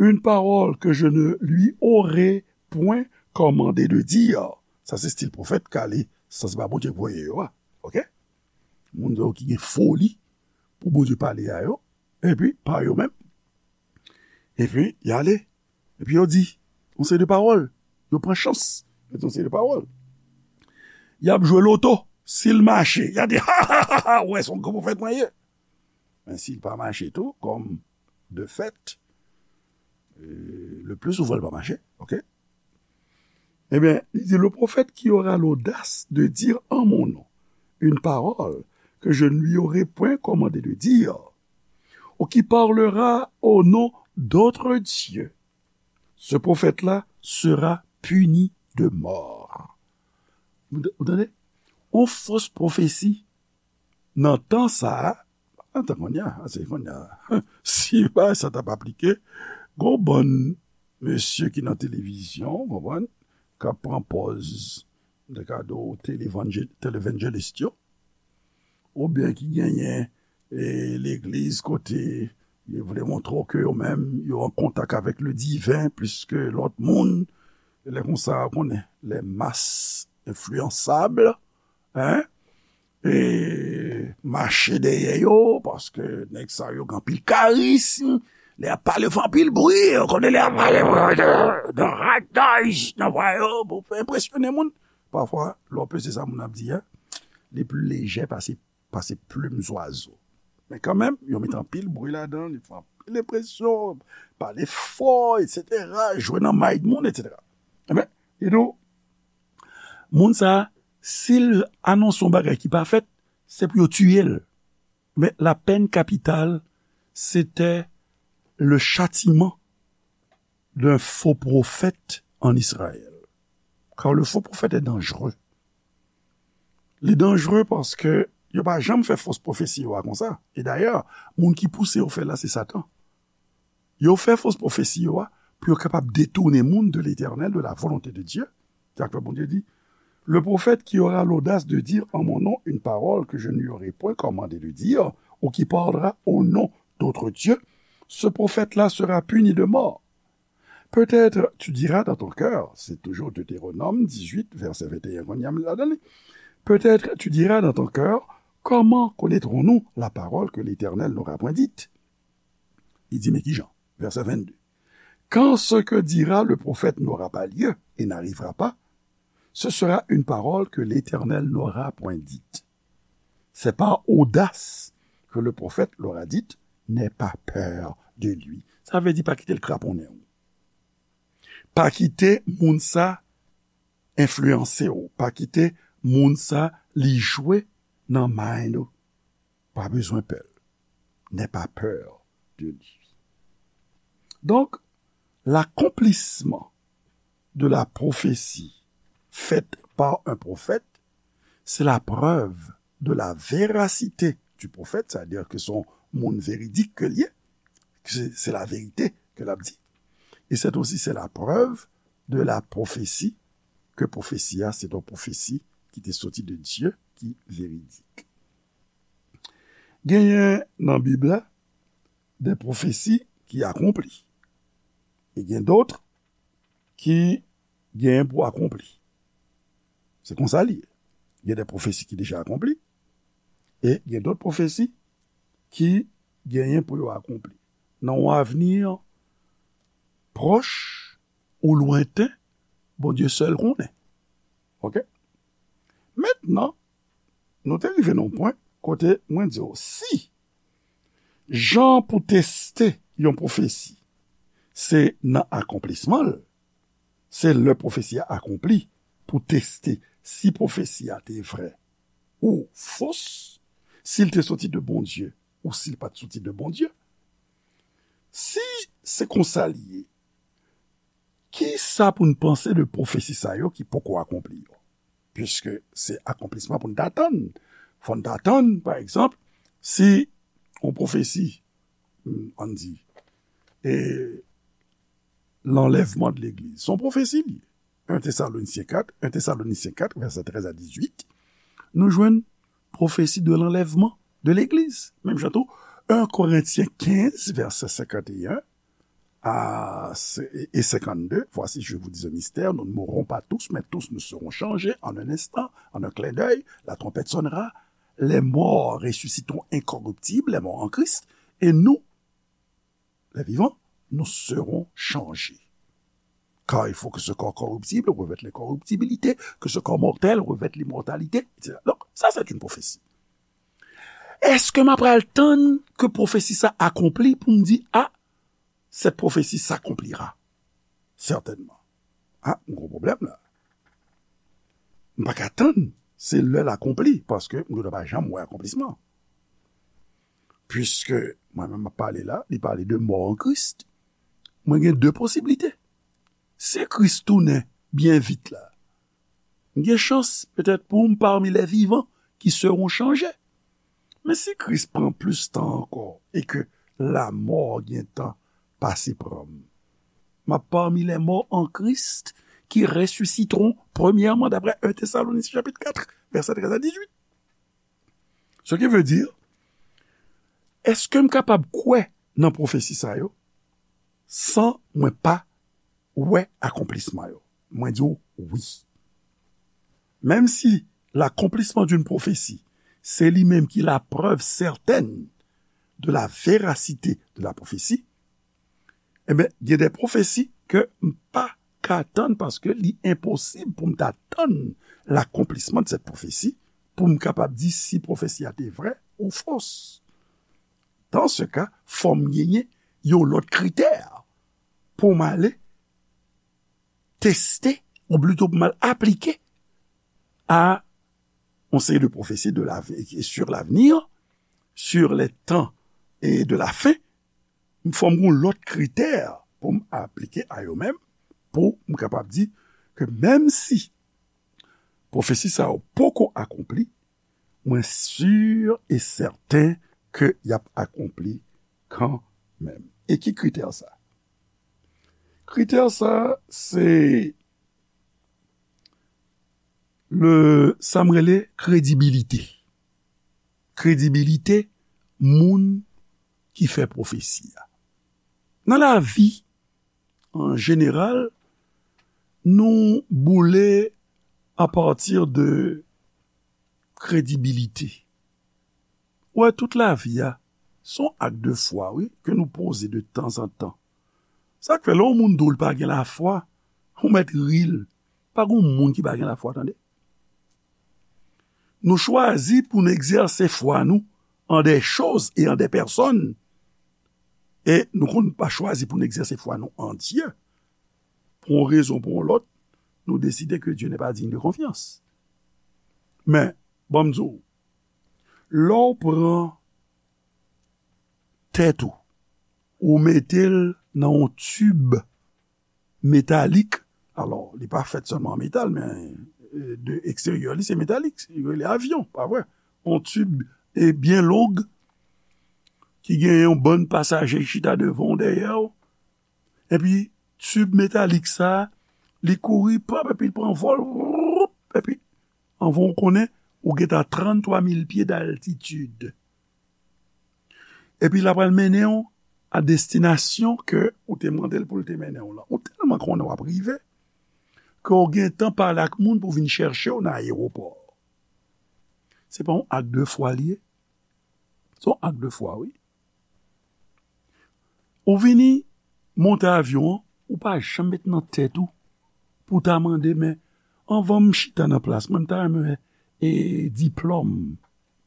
une parole que je ne lui aurai point commandé de dire. Sa se stil pwofèt k ale, sa se pa Bondye k voye yo a. Oke? Moun yo ki gen foli pou Bondye pale a yo, epi pa yo menm. Epi, y ale. Epi yo di yon seri de pawòl. Yo pran chans. Yo di yon seri de pawòl. Y ap jwe loto. Si l mache, y a di, ha, ha, ha, ha, w wè, se yon gran pwofèt mwen ye. Men si l pa mache tou, kòm de fèt, euh, le plus souvent, il va marcher, ok? Eh bien, il dit, le prophète qui aura l'audace de dire en mon nom une parole que je ne lui aurai point commandé de dire, ou qui parlera au nom d'autres dieux, ce prophète-là sera puni de mort. Ou, ou tande? On fos pwofesi nan tan sa a, nan tan kounye a, se kounye a, si bagay sa t ap aplike, gon bann mesye ki nan televizyon, w konprann, k ap pran pòz, m te ka di w, televanjel-, televanjelis yo, oubyen ki genyen, e, legliz kote yo vle montre w ke yo menm, yo an kontak avèk le diven plis ke lòt moun. Lè konsa, w konnen, les masses influençables, hein? E mache dèyè yo, paske nèg sa yo gen anpil karism. Lè y ap pale, fè anpil bri, w konnen lè y ap pale, nan white noise, nan vwa yo, pou fè enpresyone moun. Pafwa, lè w peze sa moun ap di a, li pli lejè pase, pase plim zwazo. Men kanmenm, yo met anpil bri ladan, li fè anpil enpresyon, pale fò, etsetera, jwe nan may moun, etsetera. Ebyen, e nou, moun sa a, si l anonse yon bagay ki pa fèt, se pou yo tiye l. Mais la peine capitale, c'était le châtiment d'un faux prophète en Israël. Car le faux prophète est dangereux. Li danjere paske yo pa janm fè fos pwofesi yo a konsa. E dayè, moun ki pouse yo fè l la, se Satan. Yo fè fos pwofesi yo a pou yo kapab detounen moun de Letènèl, de la volonté de Dieu. Se sa k fè Bondye di, le prophète qui aura l'audace de dire en mon nom une parole que je ne lui aurai point commandé de dire, ou qui parlera au nom d'autres dieux, ce prophète-là sera puni de mort. Peut-être tu diras dans ton cœur, c'est toujours Deutéronome dix-huit, verset vingt et un, qu'on y a là-dedans. Peut-être tu diras dans ton cœur, comment connaîtrons-nous la parole que l'Éternel n'aura point dite? Il dit, mais qui Jean? Verset vingt-deux. Quand ce que dira le prophète n'aura pas lieu et n'arrivera pas, ce sera une parole que l'Éternel n'aura point dite. C'est par audace que le prophète l'aura dite, n'aie pas peur de lui. Sa vle di pa kite l kraponnen w. Pa kite moun sa enfliyanse w. Pa kite moun sa li jwe nan mind ou. Pa bezwen pè l. N'aie pas peur de lui. Donc, l'accomplissement de la prophétie faite par un prophète, c'est la preuve de la véracité du prophète, c'est-à-dire que son moun véridique que li ye, que c'est, c'est la vérité que l ap di. Et c'est aussi, c'est la preuve de la prophétie, que pwofesi a, c'est une prophétie qui était sortie de Dieu, qui véridique. Genyen nan Bib la de pwofesi ki akonpli. E gen dòt ki genyen pou akonpli. Se konsa li ye. Gen de pwofesi ki deja akonpli, e gen dòt pwofesi ki genyen pou yo akonpli. Nan yon avni pwòch ou lwenten, Bondye sèl konnen. Oke? Mentnan, nou te rive nan yon pwen kote mwen di w, si jan pou teste yon pwofesi, se nan akonplisman l, se lè pwofesi a akonpli pou teste si pwofesi a te vrè ou fos, si l te soti de Bondye ou si l pa t soti de Bondye. Si se konsa li ye, ki sa pou n panse de pwofesi sa yo ki poko akonpli yo? Piske se akonplisman pou n ta tann. Fò n ta tann, pa egzanp, si yon pwofesi, ann di, e lanlèvman de legliz, se yon pwofesi li ye. En Tesalonisyen kat, en Tesalonisyen kat, vèsè trèz a dizuit, nou jwenn pwofesi de lanlèvman de legliz. Menm jan tou, en Korentyen kenz, vèsè senkanteyen, à, et cinquante-deux, voici, je vous dis un mystère, nous ne mourrons pas tous, mais tous nous serons changés en un instant, en un clin d'œil, la trompette sonnera, les morts ressusciteront incorruptibles, les morts en Christ, et nous, les vivants, nous serons changés. Car il faut que ce corps corruptible revête l'incorruptibilité, que ce corps mortel revête l'immortalité, et cetera. Donc, ça, c'est une prophétie. Èske m ap pral tann ke pwofesi sa akonpli pou m di, a, cette prophétie s'accomplira? Certainement. A, m gen pwoblèm la. M pa ka tann se lè l akonpli, paske m gentan pa janm wè akonplisman. Puiske mwen menm m ap pale la, li pale de mò an Kris. Mwen gen de posiblite. Si Kris tounen byen vit la, m gen chans petèt pou m parmi les vivants qui seront changés. Men si Kris pran plis tan ankò e ke lamò gen tan pase pran m, m ap parmi les morts en Christ qui ressusciteront premièrement, d'après un Thessaloniciens chapitre quatre, verset treize à dix-huit. Ce qui veut dire, èske m kapab kwè nan pwofesi sa yo san mwen pa wè akonplisman yo? Mwen di w wi. Menm si l'accomplissement d'une prophétie, c'est lui-même qui la preuve certaine de la véracité de la prophétie, ebyen, gen de pwofesi ke m pa ka tann paske li enposib pou m ta tann l'accomplissement de cette prophétie pou m kapab di si pwofesi a te vrè ou fos. Dans ce cas, fò m genyen yon lòt kritè pou m ale teste, ou plito pou m al aplike a yon seri de pwofesi de la, sur l'avenir, sur les temps et de la fin. Fò m gen yon lòt kritè pou m aplike a yo menm, pou m kapab di ke menm si pwofesi sa yo poko akonpli, mwen si e sèten ke y ap akonpli kanmenm. E ki kritè sa? Kritè sa, se le, sa m rele kredibilite. Kredibilite moun ki fè pwofesi a. Nan lavi, an jeneral, nou boule apati de kredibilite. Ou wè, tout lavi a, se yon ak de fwa, wi, ke nou poze de tanzantan. Sa k fè, lè yon moun di w li pa gen lafwa, ou mèt ri l. Pa gen yon moun ki pa gen lafwa, tande. Nou chwazi pou n egzèse fwa nou en des choses et en des personnes. E nou konn pa chwazi pou n egzèse fwa nou an Dye. Pou yon rezon, pou yon lòt, nou deside ke Dieu n'est pas digne de confiance. Men, ban m di w, lè w pran tèt ou, ou mete l nan yon tib metalik, alò, li pa fèt sèlman an metal, men, e, de eksteryè, li se metalik, yo rele avyon, pa vre? Yon tib, e, byen long, ki gen yon bann pasaje ki chita devan w, dèyè w, epi tib metalik sa, li kouri, pap, epi l pran vòl, woup, epi, anvan w konnen, ou gentan tranntwa mil pye d'altitid. Epi l apral mennen w a destinasyon ke ou te mande l pou l te mennen w lan. Ou tèlman konnen w ap rive, ke w gentan pale ak moun pou vin chèche w nan ayewopò. Se pa yon ak de fwa li ye? Se yon ak de fwa, wi. Ou vini monte avyon an, ou pa janm met nan tèt ou pou ta mande, men anvan m chita nan plas mwen, m ta renmen wè, e, diplòm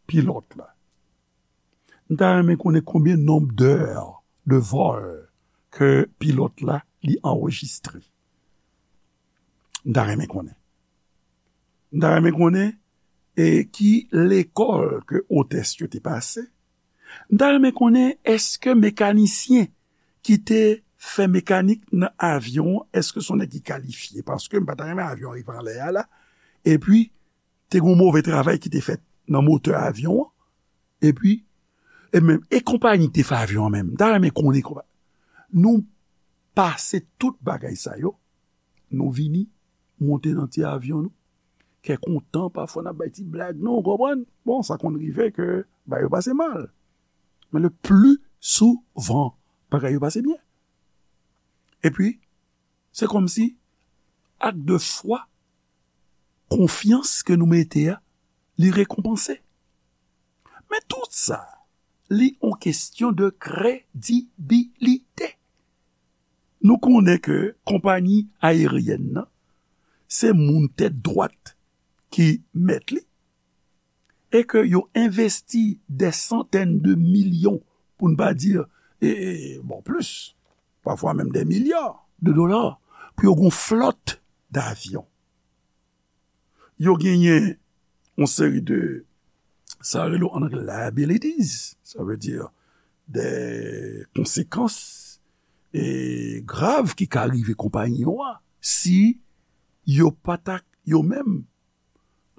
pilòt la. M ta renmen konnen konbyen nonb d'heures de vol ke pilòt la li anrejistre. M ta renmen konnen. M ta renmen konnen, e, ki lekòl ke otès yo te pase. M ta renmen konnen èske mekanisyen ki te fè mekanik nan avyon an, èske se yon nèg ki kalifye? Paske m pa ta renmen avyon an rive anlè a la, epi te gen yon move travay ki te fèt nan motè avyon an, epi, e menm, e konpayi ki te fè avyon an menm, m ta renmen konnen konpa-, nou pase tout bagay sa yo, nou vini monte nan ti avyon nou, kè kontan, pafwa n ap bay ti blag nou, w konprann? Bon, sa konn rive ke bagay yo pase mal. Men le pli souvan, bagay yo pase byen. Epi, se kòmsi ak de fwa, konfyans ke nou mete a, li rekonpanse. Men tout sa, li yon kesyon de kredibilite. Nou konnen ke konpayi ayeryèn nan, se moun tèt dwat ki mèt li, e ke yo envesti dè santèn de milyon, pou n pa di, e, e, bon, plis, pafwa menm dè milya de dola, pou yo gen yon flòt davyon. Yo genyen yon seri de, sa rele an anglè liabilities, sa vle di de konsekans e grav ki ka rive konpayi yo a, si yo pa ta yo menm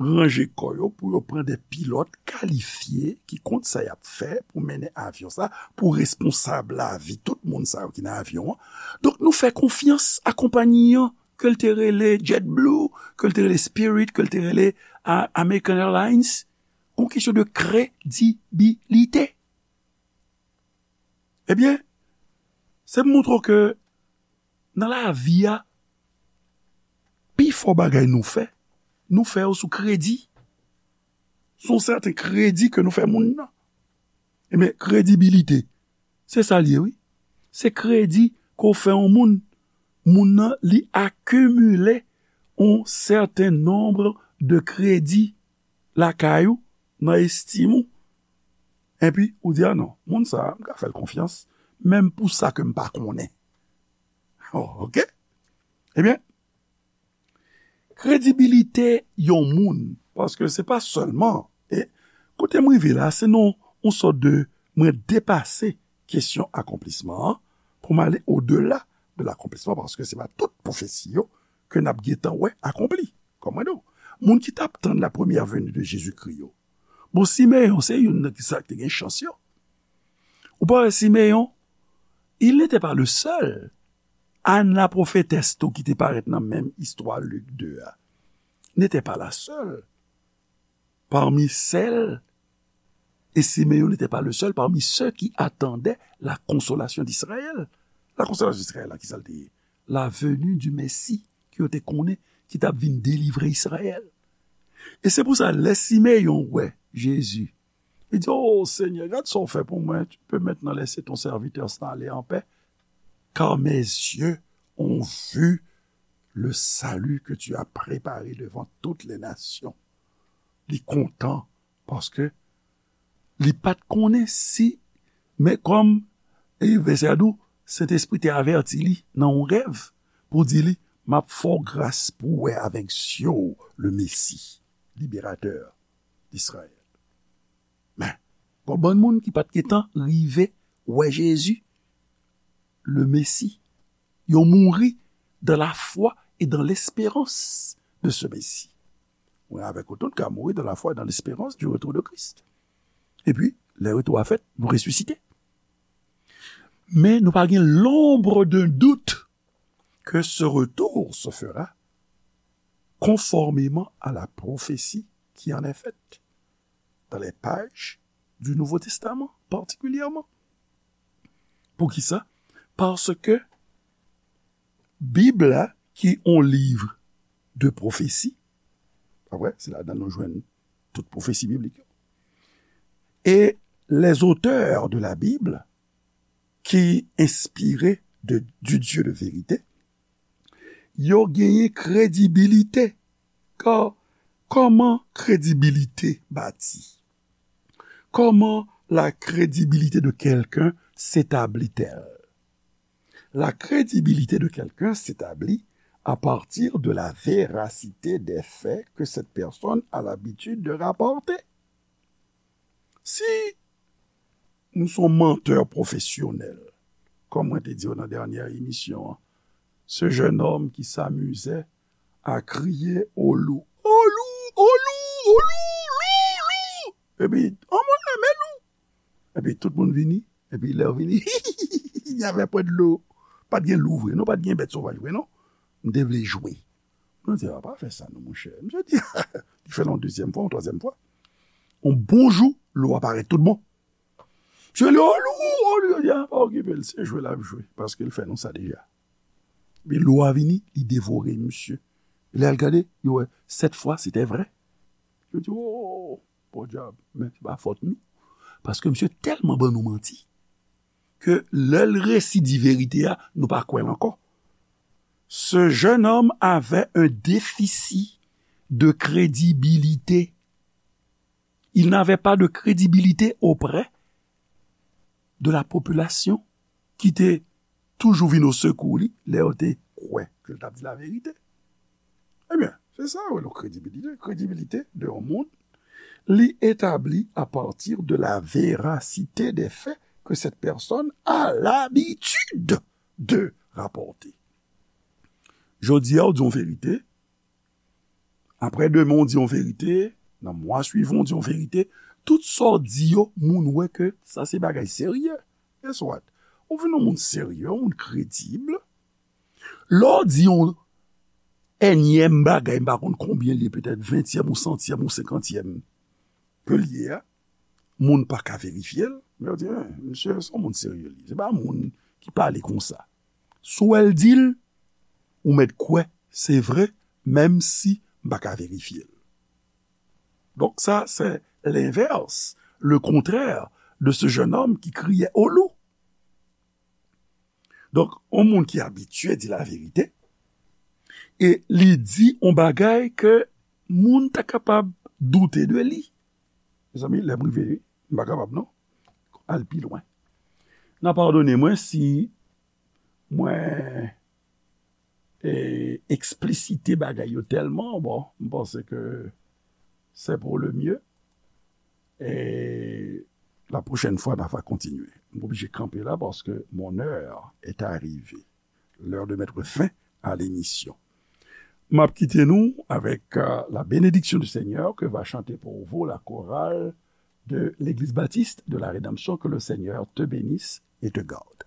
ranje kò yo pou yo pran de pilòt kalifye ki konn sa y ap fè pou mennen avyon sa, pou responsab lavi tout moun sa yo ki nan avyon an. Donk, nou fè konfyans a konpayi an, ke l te rele JetBlue, ke l te rele Spirit, ke l te rele, a, American Airlines, yon kesyon de kredibilite. Ebyen, se pou montre w ke nan lavi a, pifò bagay nou fè, nou fè yo sou kredi. Se yon sèten kredi ke nou fè moun nan. Ebyen, kredibilite, se sa l ye, wi. Se kredi ke w fè yon moun. Moun nan, li akimile yon sèten nonb de kredi lakay ou, nan estim ou. Epi, ou di, "A non, moun sa a, m ka fè l konfyans, menm pou sa ke m pa konnen." Oh, oke? Ebyen, kredibilite yon moun, paske se pa sèlman, e kote m rive la, se nan yon sòt de, mwen depase kesyon akonplisman an, pou m ale odela de lakonplisman, paske se pa tout pwofesi yo ke n ap gentan wè akonpli. Kòm mwen di w, moun ki t ap tann la première venue de Jésus-Christ yo. Bon, Simeyon, se youn nan ki sa ki te gen chans yo. Ou pa wè Simeyon, il n'était pas le seul. Anne la prophétesse tou ki te parèt nan menm istwa Lik de a, n'était pas la seule parmi celles, et Simeon n'était pas le seul parmi ceux qui attendaient la consolation d'Israël. La consolation d'Israël, la, ki sa l te ye? La venue du Messie, ke yo te konnen, ki t ap vin delivre Izrayèl. E se pou sa, lè Simeyon wè Jezi, li di, "O Senyè, gad sa w fè pou mwen, tu peux maintenant laisser ton serviteur s'en aller en paix, car mes yeux ont vu le salut que tu as préparé devant toutes les nations." Li kontan, paske li pa t konnen si, men kòm, e, vèsè a di w, Sentespri te avèti li nan yon rèv pou di li, "M ap fè w gras pou w wè avèk zye w le Mesi, liberatè d'Israël." Men, gon bann moun ki pa t gentan rive wè Jezi, le Mesi. Yo mouri dans la foi et dans l'espérance de ce Messie. Mwen avèk ou tout ka mouri dans la foi et dans l'espérance du retour de Christ. Epi, lè retou a fèt, nou resisite. Men nou pa gen l'ombre d'un doute que ce retour se fera conformément à la prophétie qui en est faite dans les pages du Nouveau Testament, particulièrement. Poukisa? Paske Bib la, ki yon liv de pwofesi, pa vre, se ladan nou jwenn tout pwofesi biblik yo. E les auteurs de la Bible, ki enspire de, du Dieu de vérité, yo genyen kredibilite. Ka, kòman kredibilite bati? Comment la crédibilité de quelqu'un s'établit-elle? La crédibilité de quelqu'un s'établit à partir de la véracité des faits que cette personne a l'habitude de rapporter. Si nou se yon mantè pwofesyonèl, kòm mwen te di w nan dènyè emisyon an, ce jeune homme qui s'amusait à crier au loup, au loup, au loup, au loup, loup, loup. Epi, anmwey, men lou. Epi tout moun vini, epi lè yo vini, il n'y avait pas de loup. Pa t gen lou vre, non, pa t gen bèt sovaj vre, non. M te vle jwe. Mwen di, "A, pa fè sa non, monchè." Misye di, li fè l yon dezyèm fwa, yon twazyèm fwa. Yon bon jou, lou a parèt tout bon. Misye rele, "O lou, o lou." Yo di, "A, pa okipe l, se jwe l ap jwe, paske l fè nou sa deja." Epi lwa vini, li devore misye. Lè al gade, yo wè, sèt fwa, se te vrè. Yo di, "Oh, podyab, men se pa fòt nou." Paske misye tèlman ban nou manti, ke lè l resi di verite a, nou pa kwè l ankò. Ce jeune homme avait un déficit de crédibilité. Il n'avait pas de crédibilité auprès de la population ki te toujou vin o sekou li lè yo te kwè ke l t ap di laverite. Ebyen, se sa yo rele kredibilite. Kredibilite de yon moun, li etabli à partir de la véracité des faits que cette personne a l'habitude de rapporter. Jodi a, ou di yon verite, apre demen, ou di yon verite, nan mwa swivan, ou di yon verite, tout sa w di yo, moun wè ke sa se bagay serye. Guess what? Ou vin yon moun serye, yon moun kredib. Lè w di yon ènyèm bagay, m pa konn konbyen li ye, petèt ventyèm ou santyèm ou senkantyèm ke li ye a, moun pa ka verifye l, men yo di, "Hein, misye se yon moun serye li. Se pa moun ki pale konsa." Si w wè l di l, ou mèt kwè se vre, menm si m pa ka verifye l. Donc ça, c'est l'inverse, le contraire de ce jeune homme qui criait au loup. Donk, yon moun ki abitye di laverite, e li di yon bagay ke moun ta kapab doute de li. Mezanmi, lè m rive, m pa kapab non. Al pi lwen. N a padone mwen si mwen e, eksplisite bagay yo tèlman, bon, m panse ke c'est pour le mieux. Et la prochaine fois, n a va continuer. M oblije kanpe la paske mon heure est arrivée. L'heure de mettre fin à l'émission. M ap kite nou avec euh, la bénédiction du Seigneur que va chanter pour vous la chorale de l'Église baptiste de la Rédemption. Que le Seigneur te bénisse et te garde.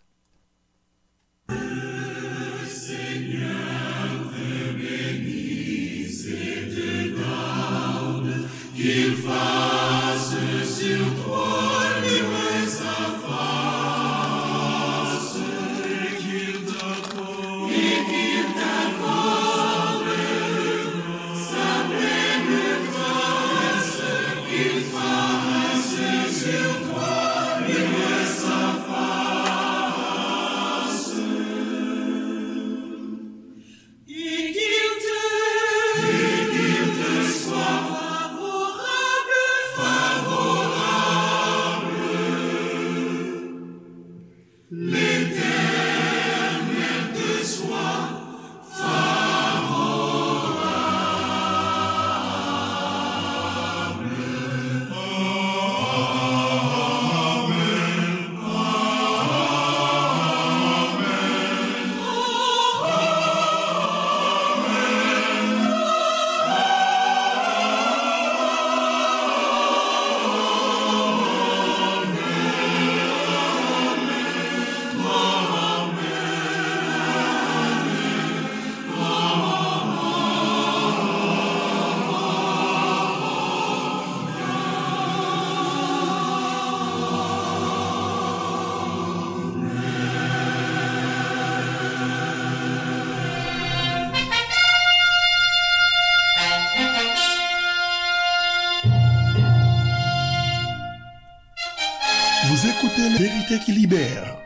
Vous écoutez la vérité qui libère.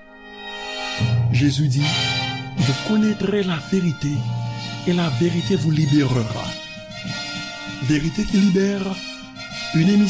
Jésus dit, vous connaîtrez la vérité et la vérité vous libérera. Vérité qui libère, une émission